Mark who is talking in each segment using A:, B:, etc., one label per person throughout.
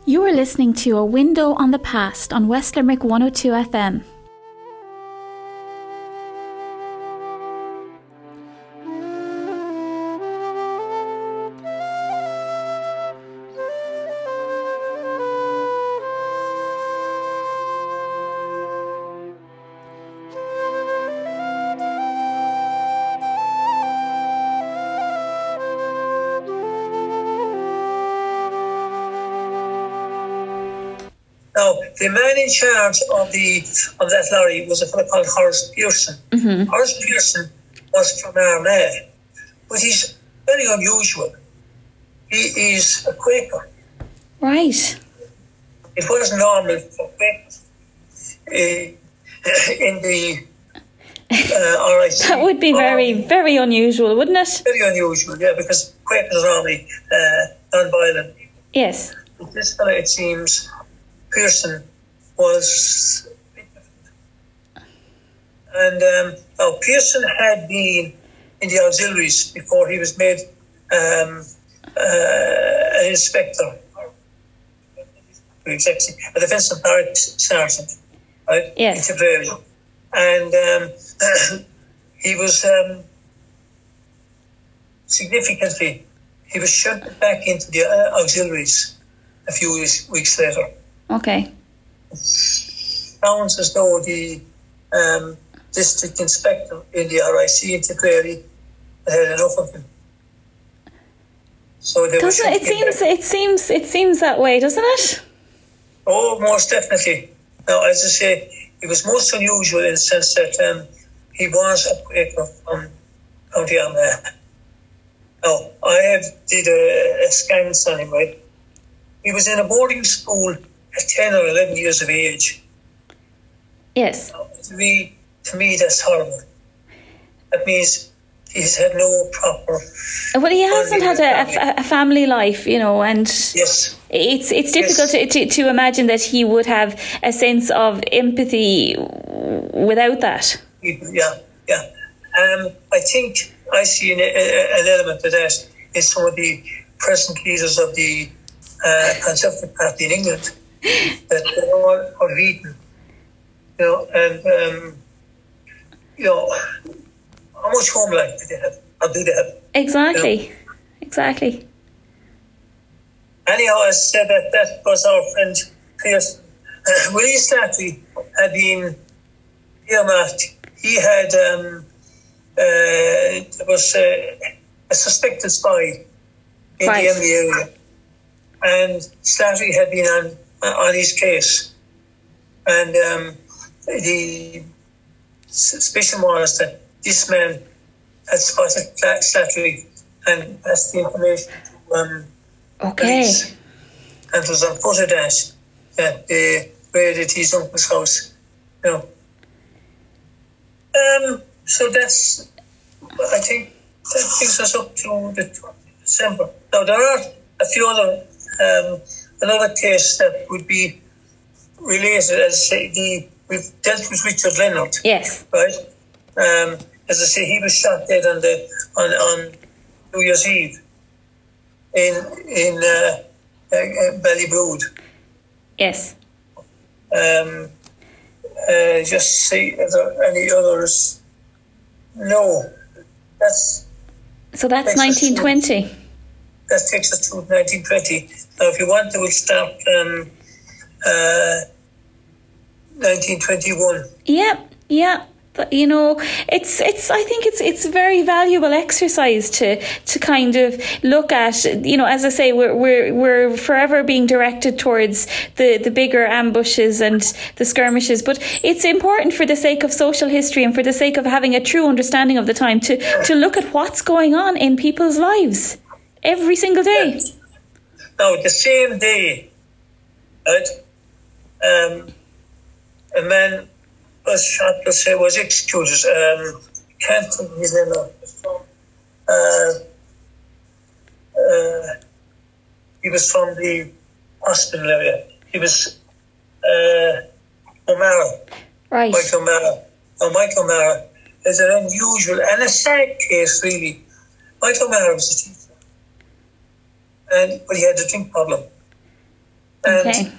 A: You are listening to A Window on the Past on West Limerick 102 FM.
B: Now, the man in charge of that lorry was a fellow called Horace Pearson. Mm-hmm. Horace Pearson was from Armagh, but he's very unusual. He is a Quaker.
A: Right.
B: It wasn't normal for Quakers in the RIC.
A: That would be very, very unusual, wouldn't it?
B: Very unusual, yeah, because Quakers are normally non-violent.
A: Yes.
B: But this fellow, it seems, Pearson was, and now Pearson had been in the auxiliaries before he was made an inspector, exactly, a defence and barracks sergeant, right?
A: Yes.
B: In Tipperary. And he was significantly, he was shunted back into the auxiliaries a few weeks later.
A: Okay.
B: Sounds as though the district inspector in the RIC in Tipperary had enough of him. So they
A: doesn't it seems that way, doesn't it?
B: Oh, most definitely. Now, as I say, it was most unusual in the sense that he was a Quaker from County Armagh. Now, I did a scans on him, right? He was in a boarding school at 10 or 11 years of age.
A: Yes.
B: Now, to me, that's horrible. That means he's had no proper...
A: Well, he hasn't had a family life, you know, and
B: yes.
A: It's difficult to imagine that he would have a sense of empathy without that.
B: Yeah. I think I see an element of that in some of the present leaders of the Conservative Party in England, that they're all unbeaten, you know, and how much home life do they have? Or do they have?
A: Exactly,
B: you know?
A: Exactly.
B: Anyhow, I said that was our friend Pearson. Willie Slattery had been earmarked. He had there was a suspected spy in the Emily area, and Slattery had been on his case, and the suspicion was that this man had spotted Slattery and passed the information to police, and it was on foot of that they raided his uncle's house, you know. So that's, I think, that brings us up to the 20th of December. Now, there are a few other, another case that would be related, as I say, we've dealt with Richard Leonard.
A: Yes.
B: Right? As I say, he was shot dead on New Year's Eve in Ballybrood.
A: Yes.
B: Just see if there are any others. No, that's
A: 1920.
B: That takes us to 1920. Now, if you want to, we'll start 1921.
A: Yeah. But, you know, it's. I think it's a very valuable exercise to kind of look at. You know, as I say, we're forever being directed towards the bigger ambushes and the skirmishes. But it's important for the sake of social history and for the sake of having a true understanding of the time to look at what's going on in people's lives every single day.
B: Yes. Now, the same day, right? A man was shot, let's say, was executed. Can't think his name now. He was from the hospital area. He was O'Mara.
A: Right.
B: Michael O'Mara. Now, Michael O'Mara is an unusual and a sad case, really. Michael O'Mara was a teacher, but he had a drink problem. And
A: Okay.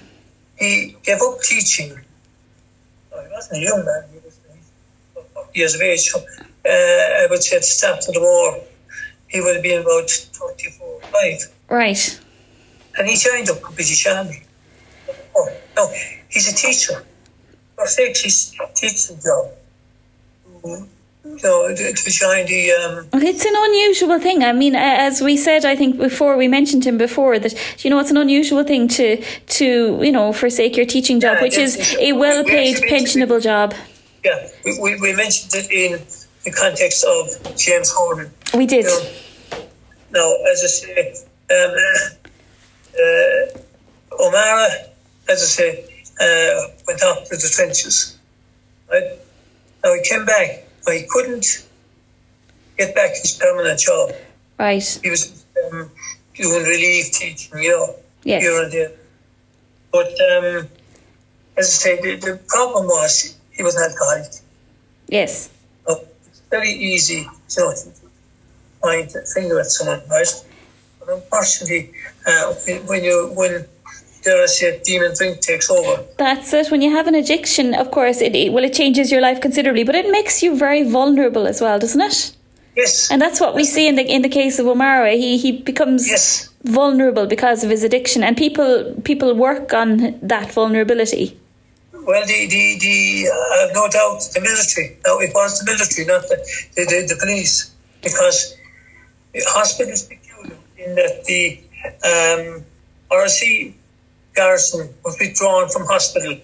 B: he gave up teaching. He wasn't a young man, he was 40 years of age. So, I would say at the start of the war, he would have been about 34, 5.
A: Right.
B: And he joined up the British Army. Oh, no, he's a teacher. For six, he's a teaching job. To join the...
A: It's an unusual thing. I mean, as we said, I think before, we mentioned him before, that, it's an unusual thing to forsake your teaching job, which is a well-paid, pensionable job.
B: Yeah, we mentioned it in the context of James Harden.
A: We did.
B: Now, as I say, O'Mara, as I say, went off to the trenches. Right? Now, he came back, but he couldn't get back his permanent job.
A: Right.
B: He was doing relief teaching,
A: Yes.
B: here and there. But, as I say, the problem was he was an alcoholic.
A: Yes.
B: It's very easy, to point a finger at someone, right? But unfortunately, when dare I say, demon drink takes over.
A: That's it. When you have an addiction, of course, it changes your life considerably, but it makes you very vulnerable as well, doesn't it?
B: Yes.
A: And that's what we see in the case of O'Mara. He becomes vulnerable because of his addiction, and people work on that vulnerability.
B: Well, I have no doubt the military. Now, it was the military, not the police, because the hospital is peculiar in that the RC garrison was withdrawn from hospital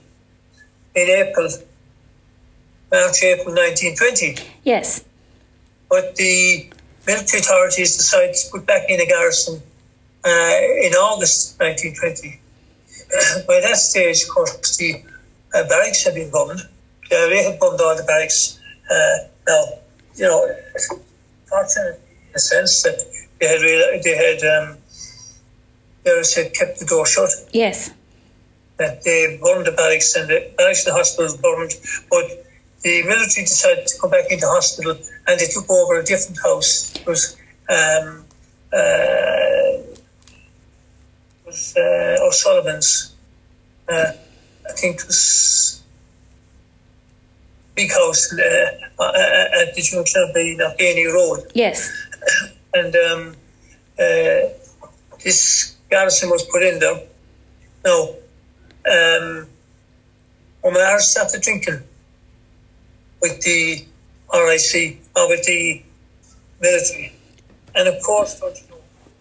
B: in March, April 1920.
A: Yes.
B: But the military authorities decided to put back in a garrison in August 1920. By that stage, of course, the barracks had been bombed. They had bombed all the barracks. Now, fortunately, in a sense that they had kept the door shut.
A: Yes.
B: That they burned the barracks, and the barracks in the hospital was burned. But the military decided to come back into hospital, and they took over a different house. It was O'Sullivan's. I think it was big house at the junction of the Knockany Road.
A: Yes.
B: And this garrison was put in there. Now, O'Mara started drinking with the RIC, or with the military. And of course,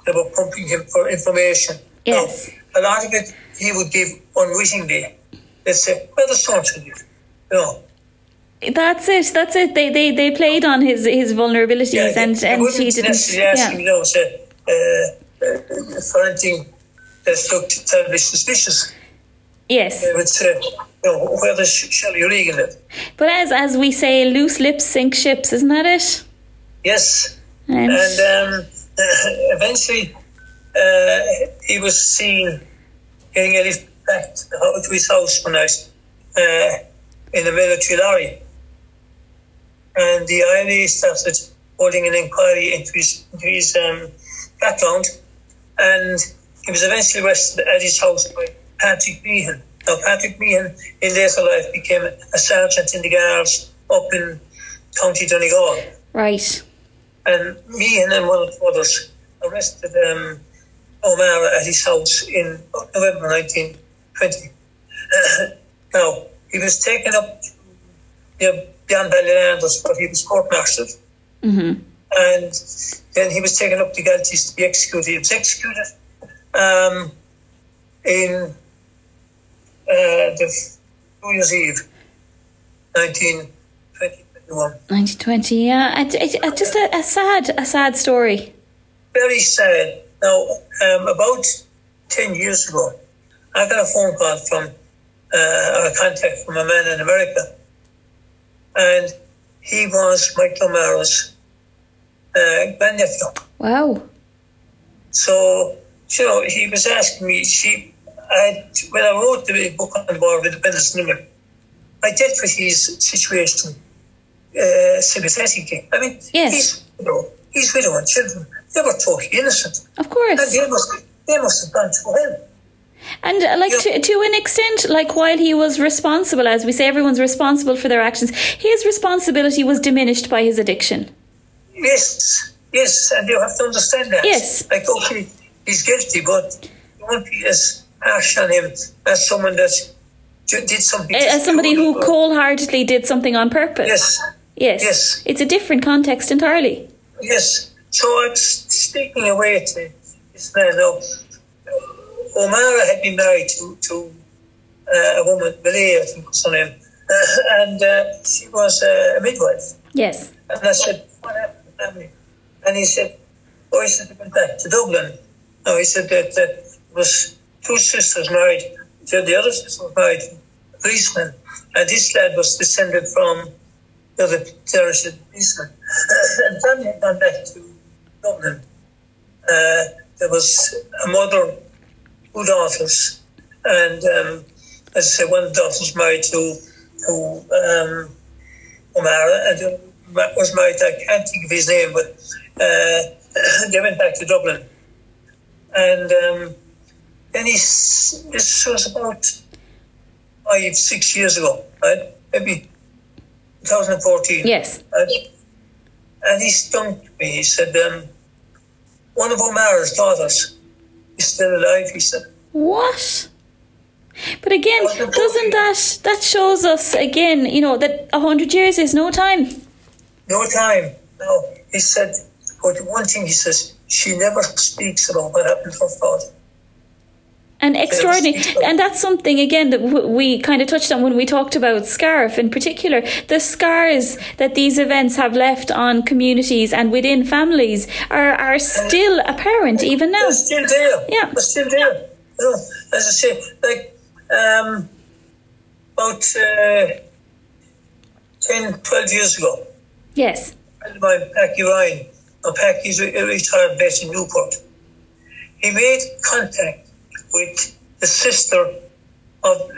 B: they were pumping him for information.
A: Yes.
B: Now, a lot of it he would give unwittingly. They'd say, well, there's something to it.
A: That's it. They played on his vulnerabilities, and he didn't.
B: Necessarily ask him, for anything that looked terribly suspicious.
A: Yes.
B: They would say, where does Shelley Regan live?
A: But as we say, loose lips sink ships, isn't that it?
B: Yes.
A: And
B: eventually, he was seen getting a lift back to his house one night in a military lorry. And the IRA started holding an inquiry into his background, and he was eventually arrested at his house by Patrick Meehan. Now, Patrick Meehan in later life became a sergeant in the Guards up in County Donegal. Right. And Meehan and one of the others arrested O'Mara at his house in November 1920. Now, he was taken up to beyond Ballylanders, but he was court-martialed. Mm-hmm. And then he was taken up to Galties to be executed. He was executed in the New Year's Eve, 1921.
A: 1920, yeah. Just a sad story.
B: Very sad. Now, about 10 years ago, I got a phone call from a contact from a man in America, and he was Michael O'Mara's grandnephew. Wow. So, he was asking me, when I wrote the book on the War of Independence in Limerick, I dealt with his situation sympathetically. I mean, yes. He's widow and children. They were totally innocent.
A: Of course.
B: And they must have gone to hell.
A: And to an extent, like while he was responsible, as we say, everyone's responsible for their actions, his responsibility was diminished by his addiction.
B: Yes, and you have to understand that.
A: Yes.
B: Like, okay, he's guilty, but you won't be as harsh on him as someone that did something.
A: As somebody who cold-heartedly did something on purpose. Yes. It's a different context entirely.
B: Yes. So I'm speaking away to this man now. O'Mara had been married to a woman, Malia, I think was her name, and she was a midwife.
A: Yes.
B: And I said, what happened to the family? And he said, he said they went back to Dublin. No, he said that there was two sisters married. The other sister was married to a policeman, and this lad was descended from the other terrorist policeman. And the family had gone back to Dublin. There was a mother, two daughters, and as I say, one of the daughters was married to O'Mara, and the other was married, I can't think of his name, but they went back to Dublin. And then this was about 5-6 years ago, right? Maybe 2014.
A: Yes.
B: And he stumped me. He said, one of O'Mara's daughters is still alive, he said.
A: What? But again, doesn't that shows us again, that 100 years is no time?
B: No time. No. He said, but one thing he says, she never speaks about what happened to her father.
A: And extraordinary. And that's something, again, that we kind of touched on when we talked about Scariff in particular. The scars that these events have left on communities and within families are still apparent even now.
B: They're still there.
A: Yeah.
B: They're still there. As I say, like about 10, 12 years ago.
A: Yes.
B: My Packy Ryan, Packy's a retired vet in Newport. He made contact with the sister of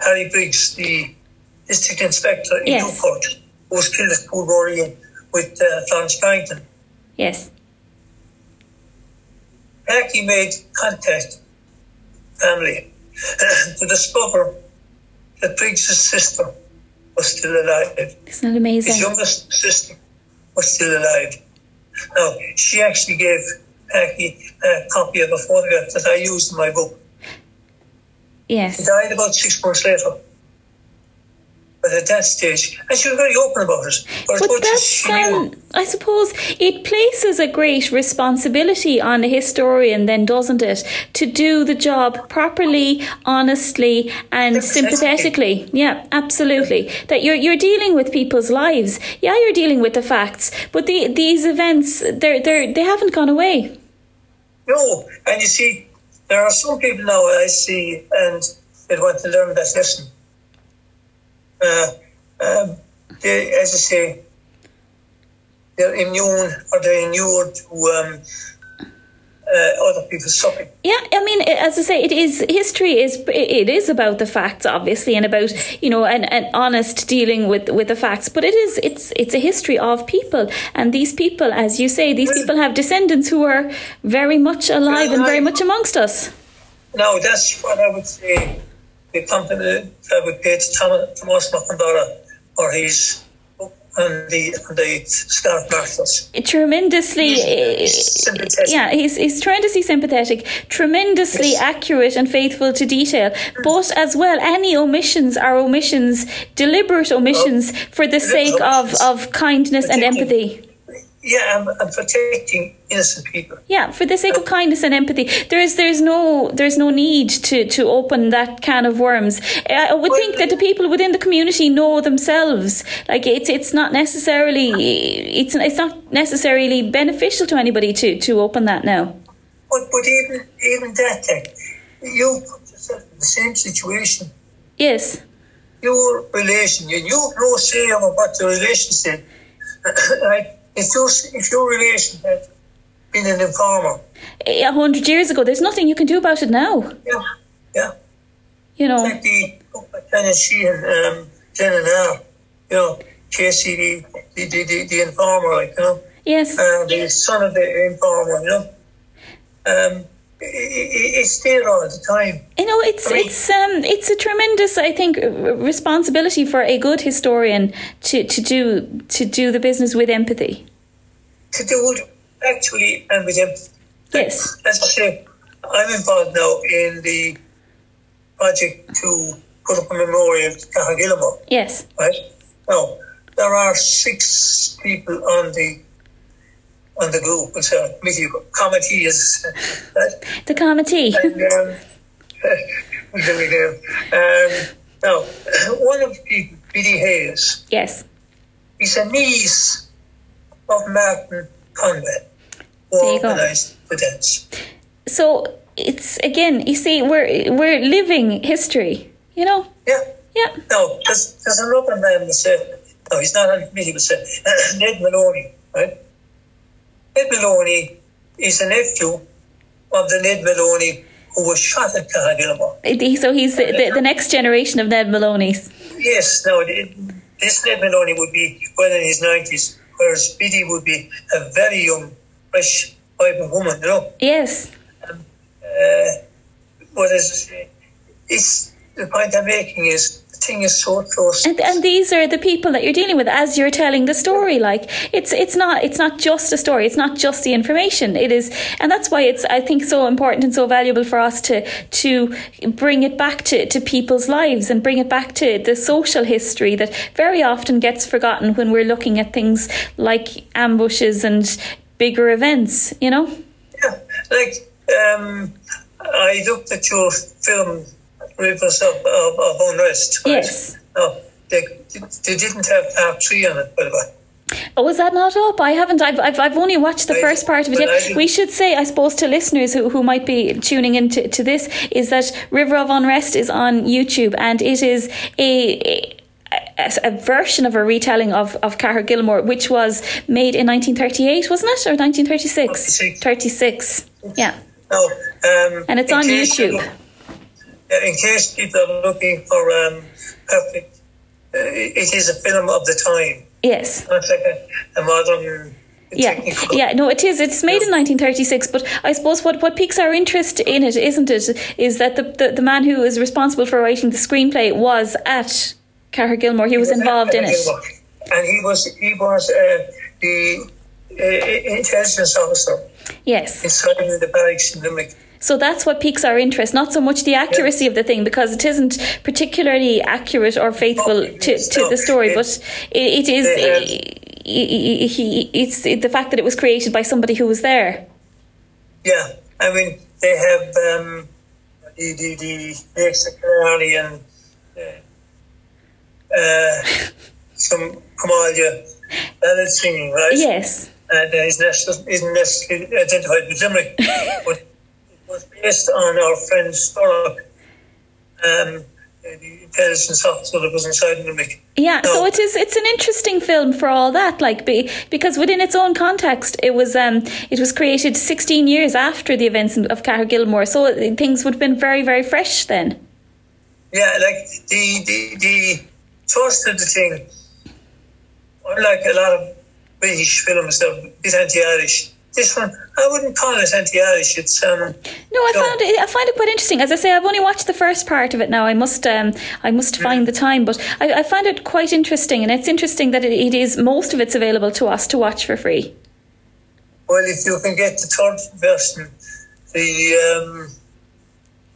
B: Harry Briggs, the district inspector in Newport, who was killed at Poolboreen with Florence Barrington.
A: Yes.
B: Packy made contact with family to discover that Briggs' sister was still alive.
A: Isn't that amazing?
B: His youngest sister was still alive. Now, she actually gave Packy a copy of a photograph that I used in my book.
A: Yes.
B: She died about 6 months later. But at that stage, and she was very open about it. But
A: that's, I suppose, it places a great responsibility on a historian then, doesn't it? To do the job properly, honestly and sympathetically. Yeah, absolutely. That you're dealing with people's lives. Yeah, you're dealing with the facts. But these events, they haven't gone away.
B: No, and you see, there are some people now I see and they want to learn that lesson. They, as I say, they're immune or they're inured to other people's suffering.
A: Yeah, I mean, as I say, history is about the facts, obviously, and about an honest dealing with the facts. But it's a history of people, and these people, as you say, these people have descendants who are very much alive and very much amongst us.
B: No, that's what I would say. The compliment I would pay to Thomas McIndora for his book on the Scarf Marshals.
A: Tremendously,
B: he's sympathetic.
A: Yeah, he's tremendously sympathetic, tremendously accurate and faithful to detail. But as well, any omissions are omissions, deliberate omissions for the sake of kindness and empathy.
B: Yeah, I'm protecting innocent people.
A: Yeah, for the sake of kindness and empathy. There's no need to open that can of worms. I would think that the people within the community know themselves. Like it's not necessarily beneficial to anybody to open that now.
B: But even that, you put yourself in the same situation.
A: Yes.
B: Your relation, you have no say over what your relation said. Right? If your relation had been an informer
A: 100 years ago, there's nothing you can do about it now.
B: Yeah. Like the Tennessee and Jenna now, Casey, the informer,
A: Yes.
B: The son of the informer, it's there all the time.
A: It's a tremendous, I think, responsibility for a good historian to do the business with empathy.
B: To do it actually and with empathy.
A: Yes.
B: As I say, I'm involved now in the project to put up a memorial to Cathair Gilmore.
A: Yes.
B: Right? Now, there are 6 people on the group. It's a committee is right?
A: The committee.
B: Now, one of the people, Biddy Hayes.
A: Yes.
B: He's a niece of Martin Conway, who organised the dance.
A: So it's, again, you see, we're living history, you know?
B: Yeah.
A: Yeah.
B: Now, there's another man that said, no, he's not on the committee, but said, Ned Maloney, right? Ned Maloney is a nephew of the Ned Maloney who was shot at Cathair Gilmore.
A: So he's the next generation of Ned Maloney's.
B: Yes, now this Ned Maloney would be well in his 90s, whereas Biddy would be a very young, fresh, vibrant woman, you know?
A: Yes.
B: What is it's the point I'm making is the thing is so close.
A: And these are the people that you're dealing with as you're telling the story. Like it's not just a story. It's not just the information. It is, and that's why it's, I think, so important and so valuable for us to bring it back to people's lives and bring it back to the social history that very often gets forgotten when we're looking at things like ambushes and bigger events. You know.
B: Yeah, like I looked at your film Rivers of Unrest. Right?
A: Yes.
B: No, they didn't have part 3 on it, by the way.
A: Oh, is that not up? I haven't. I've only watched the first part of it yet. We should say, I suppose, to listeners who might be tuning into this, is that River of Unrest is on YouTube, and it is a version of a retelling of Cathair Gilmore, which was made in 1938, wasn't it, or 1936? 36. Yeah.
B: No,
A: and it's on YouTube.
B: In case people are looking for perfect, it is a film of the time.
A: Yes.
B: Not like a modern.
A: Yeah, no, it is. It's made in 1936, but I suppose what piques our interest in it, isn't it, is that the man who is responsible for writing the screenplay was at Cathair Gilmore. He was involved in it.
B: And he was the intelligence officer.
A: Yes.
B: Inside the barracks in Limerick.
A: So that's what piques our interest, not so much the accuracy of the thing, because it isn't particularly accurate or faithful to the story, but it's the fact that it was created by somebody who was there.
B: Yeah, I mean, they have the Canary and some Comalia ballad singing, right?
A: Yes.
B: And isn't necessarily identified with Limerick, but was based on our friend Storrock, the intelligence officer that was inside Limerick.
A: Yeah, so it's an interesting film for all that, like because within its own context, it was created 16 years after the events of Cathair Gilmore, so things would have been very, very fresh then.
B: Yeah, like the thrust of the thing, unlike a lot of British films, they're a bit anti-Irish. This one, I wouldn't call it anti-Irish. It's
A: no, I find it quite interesting. As I say, I've only watched the first part of it now. I must find the time, but I find it quite interesting, and it's interesting that it is, most of it's available to us to watch for free.
B: Well, if you can get the third version,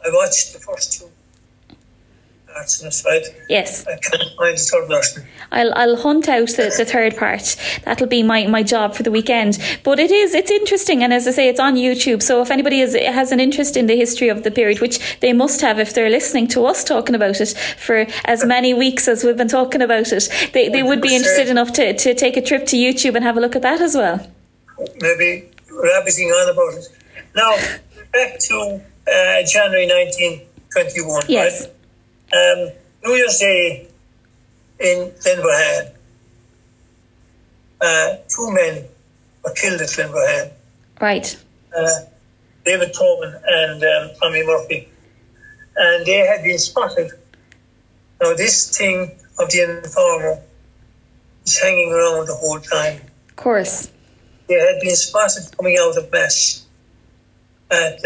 B: I watched the first 2 parts of it, right?
A: Yes.
B: I can't find the third version.
A: I'll hunt out the third part. That'll be my job for the weekend. But it's interesting, and as I say, it's on YouTube. So if anybody has an interest in the history of the period, which they must have if they're listening to us talking about it for as many weeks as we've been talking about it, they would be interested enough to take a trip to YouTube and have a look at that as well.
B: Maybe rabbiting on about it. Now, back to January 1921,
A: yes.
B: Right? New Year's Day in Glenverhan, 2 men were killed at Glenverhan.
A: Right.
B: David Tobin and Tommy Murphy. And they had been spotted. Now, this thing of the informer is hanging around the whole time.
A: Of course.
B: They had been spotted coming out of Mass. at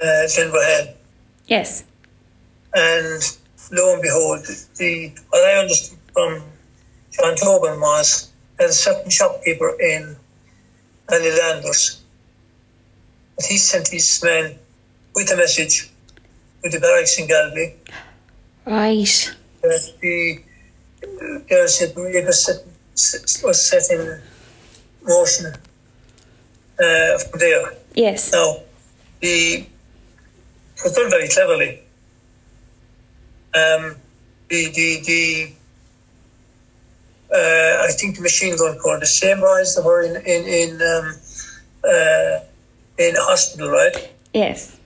B: Glenverhead.
A: Yes.
B: And lo and behold, what I understood from John Tobin was that a certain shopkeeper in Ballylanders, that he sent his men with a message with the barracks in Galway.
A: Right.
B: That the was set in motion from there.
A: Yes.
B: Now, it was done very cleverly. I think the machine gun corps, the same boys that were in hospital, right?
A: Yes.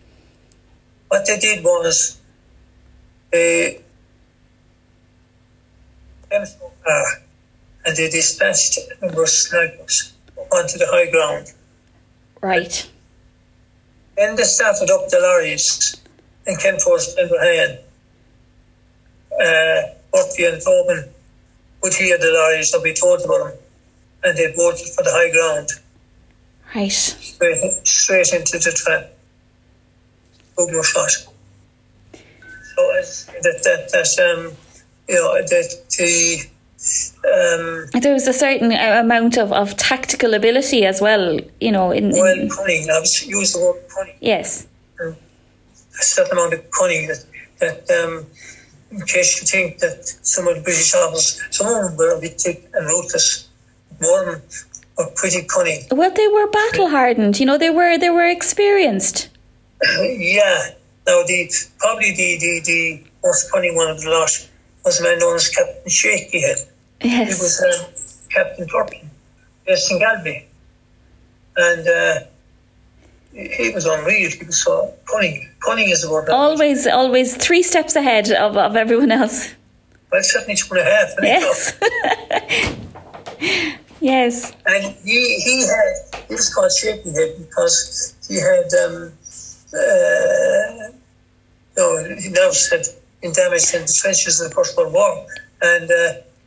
B: What they did was they came to a car and they dispatched a number of snipers onto the high ground.
A: Right.
B: Then they started up the lorries and came towards Glenverhead. Murphy and Tobin would hear the lorries that we told about them, and they boarded for the high ground.
A: Right.
B: Straight into the trap. Boom shot. So
A: there was a certain amount of tactical ability as well,
B: cunning. I was use the word cunning.
A: Yes.
B: A certain amount of cunning that in case you think that some of the British officers, some of them were a bit thick and ruthless, more of them were pretty cunning.
A: Well, they were battle hardened. They were experienced.
B: Yeah. Now, probably the most cunning one of the lot was a man known as Captain Shakyhead.
A: Yes.
B: He was Captain Turpin, based in Galway. And he was unreal. He was so cunning. Cunning is the word.
A: Always 3 steps ahead of everyone else.
B: Well, certainly 2.5.
A: Yes. Yes.
B: And he was called Shakyhead because he had he now said in damage in the trenches of the First World War, and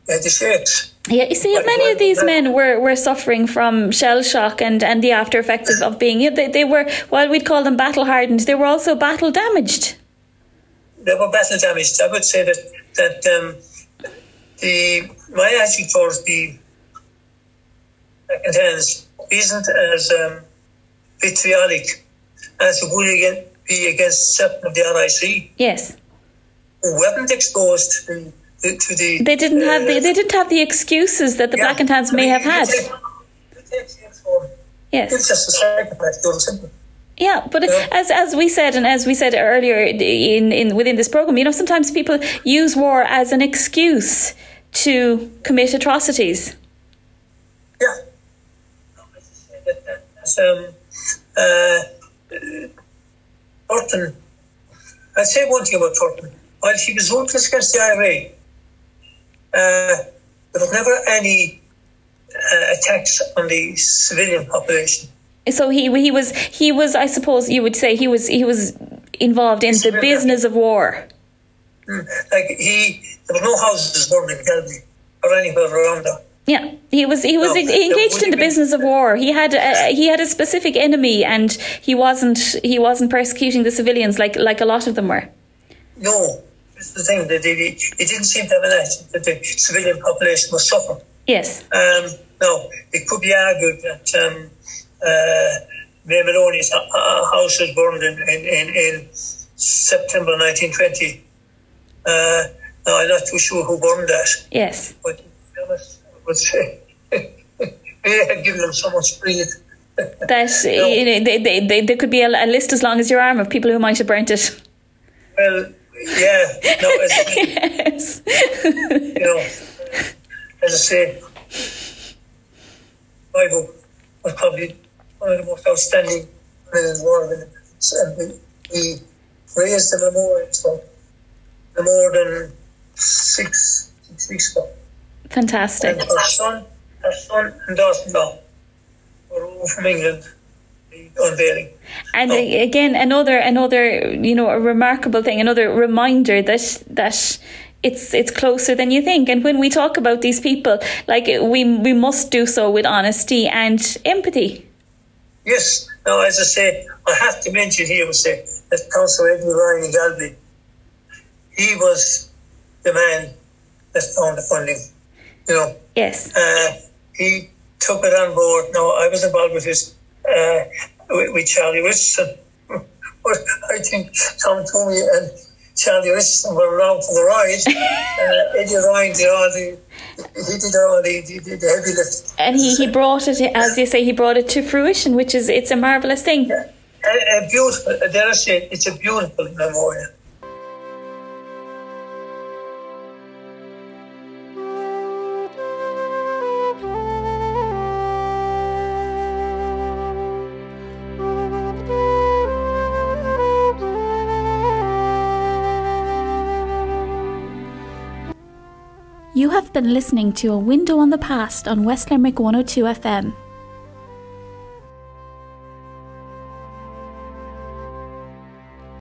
B: he had the shakes.
A: Yeah, you see, many of these men were suffering from shell shock and the after effects of being. They were, while we'd call them battle hardened, they were also battle damaged.
B: They were battle damaged. I would say that my attitude towards the second hands isn't as vitriolic as it would be against certain of the RIC.
A: Yes.
B: Who weren't exposed to the.
A: They didn't have the excuses that the Black and Tans may have had. Yes.
B: It's just a psychopath, simple.
A: Yeah, but as we said, and as we said earlier within this program, sometimes people use war as an excuse to commit atrocities.
B: Yeah. Turpin. I'd say one thing about Turpin. While he was ruthless against the IRA, there was never any attacks on the civilian population.
A: So he was I suppose you would say he was involved in the business of war.
B: There was no houses burned in Galway or anywhere around there.
A: Yeah, he was engaged in the business of war. He had a specific enemy, and he wasn't persecuting the civilians like a lot of them were.
B: No, this is the thing. He didn't seem to have an attitude that the civilian population was suffering.
A: Yes.
B: Now, it could be argued that May Maloney's house was burned in September 1920. Now, I'm not too sure who burned that.
A: Yes.
B: But to be honest, I would say they had given them so much breathe.
A: That there could be a list as long as your arm of people who might have burnt it.
B: Well, yeah. No,
A: yes.
B: As I say, my book was probably one of the most outstanding men in the world, and we raised the memorial for no more than 6 weeks ago.
A: Fantastic.
B: And her son and daughter-in-law were over from England, the unveiling.
A: And again, another a remarkable thing, another reminder that it's closer than you think. And when we talk about these people, we must do so with honesty and empathy.
B: Yes. Now, as I say, I have to mention here, that Councillor Edmund Ryan in Galway, he was the man that found the funding.
A: Yes.
B: He took it on board. Now, I was involved with with Charlie Richardson. But I think Tom Toomey and Charlie Richardson were around for the ride. Eddie Ryan did all the heavy lift.
A: And he brought it, as you say, he brought it to fruition, it's a marvellous thing.
B: Yeah. A beautiful, dare I say, it's a beautiful memorial.
C: You have been listening to A Window on the Past on West Limerick 102 FM.